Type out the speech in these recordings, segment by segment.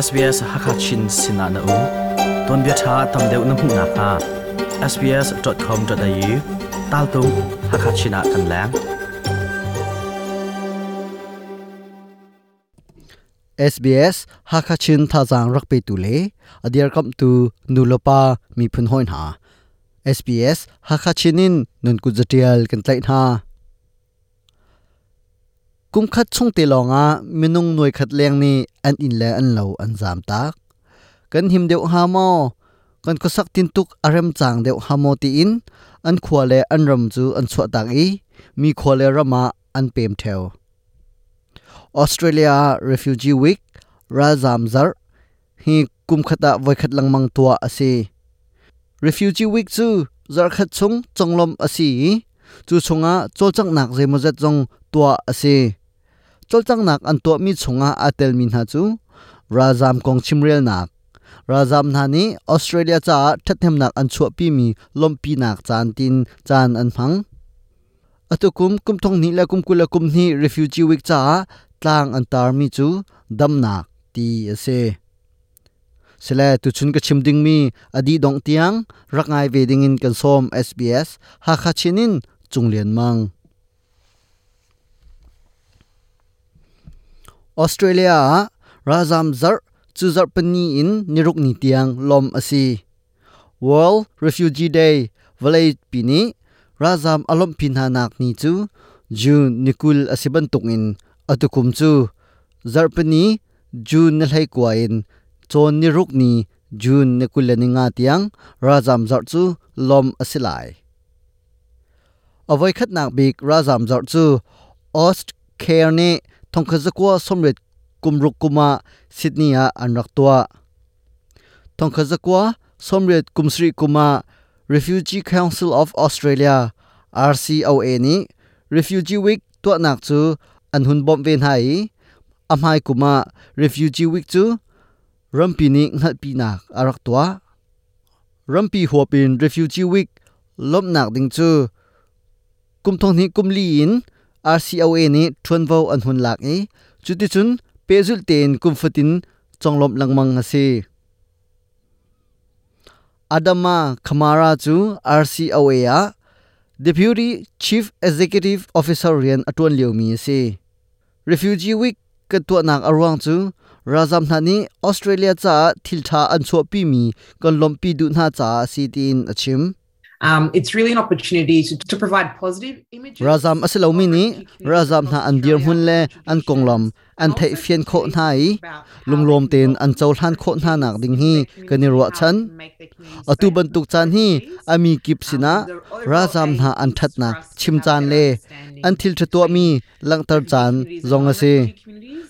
SBS Hakachin sinah na um. Tuanbia ṭha tam deuh na hmuh nakhnga sbs.com.au taltung Hakachin ah kan leng. SBS Hakachin thazaang rak petu le a dirkamhtu nulepa miphun hawi hna. SBS Hakachin in nun kut zatial kan tlaih hna. Kumkhat chung te lawngah minung nuaikhat leng nih an inn le an lo an zaamtak. Kan him deuh hnga maw? Kan khuasak tintuk a remcang deuh hnga maw tiin an khua le an ram cu an chuahtak i mi khua le ram ah an pem ṭheo. Australia ah Refugee Week, ralzaam zarh, hi kumkhat ah voikhat lengmang tuah a si. Refugee Week cu zarhkhat chung conglawmh a si i cu chungah cawlcanghnak zeimawzat zong tuah a si. Cawlcanghnak an tuahmi chungah aa telmi hna cu ralzaam kong chimrelnak, ralzaam hna nih Australia caah ṭhathnemnak an chuahpimi lawmhpinak caan tiin caan an hmang. Atu kum kum thong hnih le kum 20 le kum hnih Refugee Week caah tlang an tarmi cu damnak ti a si. Sile tuchun ka chim dingmi a dih dongh tiang rak ngai ve dingin kan sawm SBS Hakha Chin in Cung Lian Mang. Australia ah ralzam zarh cu zarh pani in niruk ni tiang lawmh a si. World Refugee Day vawlei pi nih ralzam a lawmhpi hna nak ni cu June ni 20 a si bantukin atukum cu zarhpini June ni 19 in cawn ni ruk ni June ni 25 tiang ralzam zarh cu lawmh a si lai. A voikhatnak bik ralzam zarh cu Austcare nih 1986 kum ah Sydney ah an rak tuah. 1997 kum ah Refugee Council of Australia RCOA nih Refugee Week tuahnak cu an hun bawmh ve hna i a hmai kum ah Refugee Week cu rampi nih hngalhpinak a rak tuah. Rampi huap in Refugee Week lawmhnak ding cu kum thong hnih kum li in RCOA nih ṭuanvo an hun lak i cuticun pehzulh tein kum fatin conglawmh lengmang a si. Adama Kamara cu RCOA ah Deputy Chief Executive Officer rian a ṭuan liomi a si. Refugee Week kan tuahnak a ruang cu ralzam hna nih Australia caah thilṭha an chuahpimi kan lawmhpi duh hna caah a si tiin a chim. It's really an opportunity to provide positive images. Ralzam a si lomi nih ralzam hna an dirhmun le an konglam an theihfian khawh hna i lunglawm tein an cohlan khawh hna nak ding hi kan i ruahchan. Atu bantuk caan hi a mi kip sinah ralzam hna an ṭhatnak chim caan le an thil ṭha tuahmi langhter caan zong a si.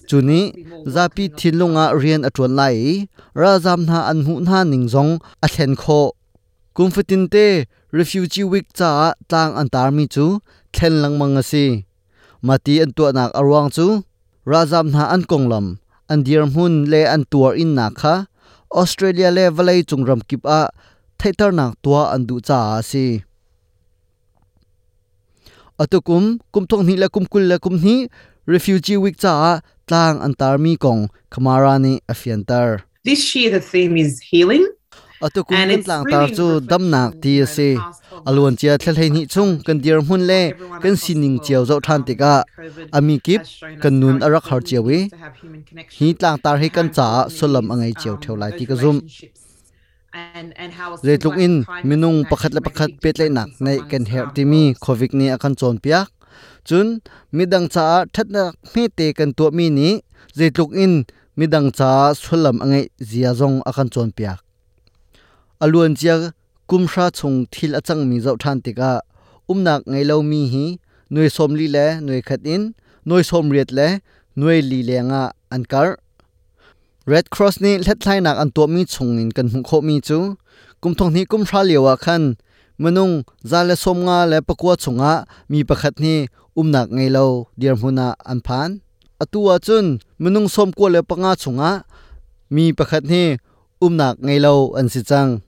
Cu nih zapi thinlung ah rian a ṭuan lai i ralzam hna an hmuh hna ning zong a thlen khawh. Kum fatinte Refugee Week caah tlang an tarmi cu thlen lengmang a si. Mati an tuahnak a ruang cu ralzam hna an konglam, an dirhmun le an tuar innak kha Australia le vawlei cung ramkip ah theihternak tuah an duh caah a si. Atu kum, kum thong hnih le kum 22 Refugee Week caah tlang an tarmi kong Kamara nih a fianter. This year the theme is healing. Atu kum kan tlangtar cu damnak ti a si. A luancia thla hleihnih chung kan dirhmun le kan sining cio zoh ṭhan tikah a mi kip kan nun a rak har cio i hi tlangtar hi kan caah sullam a ngei cio ṭheo lai ti ka zumh. Zeitluk in minung pakhat le pakhat pehtlaihnak ngeih kan herh timi COVID nih a kan cawnpiak. Cun midang caah ṭhatnak hmete kan tuahmi nih zeitluk in midang caah sullam a ngeih zia zong a kan cawnpiak. A luancia kum hra chung thil a cangmi zoh ṭhan tikah umnak ngei lomi hi nuai 40 le nuai khat in nuai 80 le nuai li lengah an karh. Red Cross nih hlathlainak an tuahmi chungin kan hmuh khawhmi cu kum thong hnih kum hra lio ah khan minung 154 chungah mi pakhat nih umnak ngei lo dirhmun ah an phan. Atu ahcun minung 95 chungah mi pakhat hi umnak ngei lo an si cang.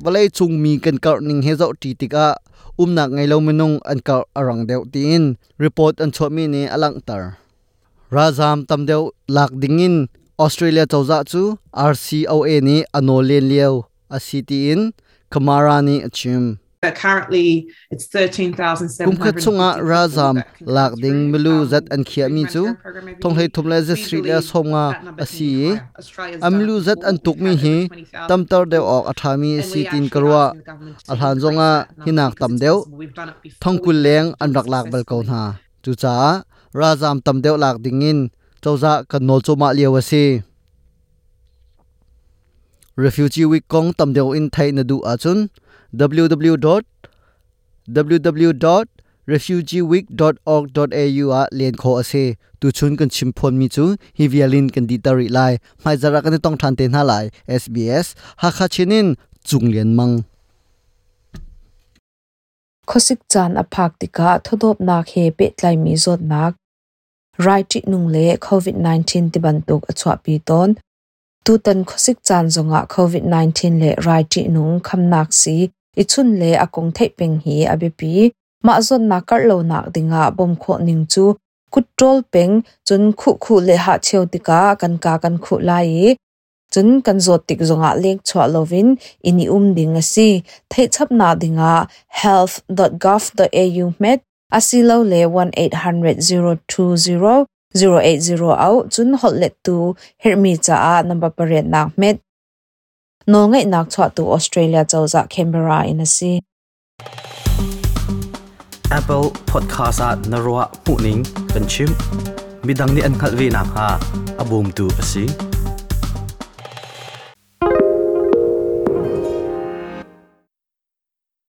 Vawlei cung mi kan karh ning he zohṭi tikah umnak ngei lo minung an karh a rang deuh tiin report an chuahmi nih a langhter. Ralzaam tam deuh lak dingin Australia cozah cu RCOA nih a nawl len lio a si tiin Kamara nih a chim. Currently, it's 13,750 Kum khat chungah ralzam lak ding milu zat an khiahmi cu thonghlei thum le zasarih le 50 a si i a milu zat an tukmi hi tamter deuh awk a ṭhami a si tiin ka ruah. A hlan zongah hinak tam deuh thongkul leng an rak lak bal ko hna. Cucaah ralzam tam deuh lak dingin cozah kan nawl cuahmah lio a si. Refugee Week kong tam deuh in theih na duh ahcun www.www.refugeeweek.org.au ah len khawh a si. Tuchun kan chim phuanmi cu hi vial in kan dihter rih lai. Hmaizarh ah kan i tong ṭhan te hna lai. SBS Hakha Chin in Cung Lian Mang. Khuasik caan a phak tikah thawdawpnak he pehtlaimi zawtnak, rai ṭihnung le COVID-19 tibantuk a chuahpi tawn. Tutan khuasik caan zongah COVID-19 le rai ṭihnung khamnak sii i chunh le a kong theih peng hi a biapi. Mah zawtnak karh lonak dingah bawmh khawh ning cu kut ṭawl peng, cun khuhkhuh le hahcheu tikah kan kaa kan khuh lai i cun kan zawt tik zongah lengchuah loin inn i um ding a si. Theihchapnak dingah health.gov.au hmet asilole 1800 020 080 auh cun holhlettu herhmi caah number pariatnak hmet. Nawlngeihnak chuahtu Australia cozah Canberra in a si. Apple Podcast ah na ruah hmuhning kan chim. Midang nih an hngalh ve nakhnga a bawmtu a si.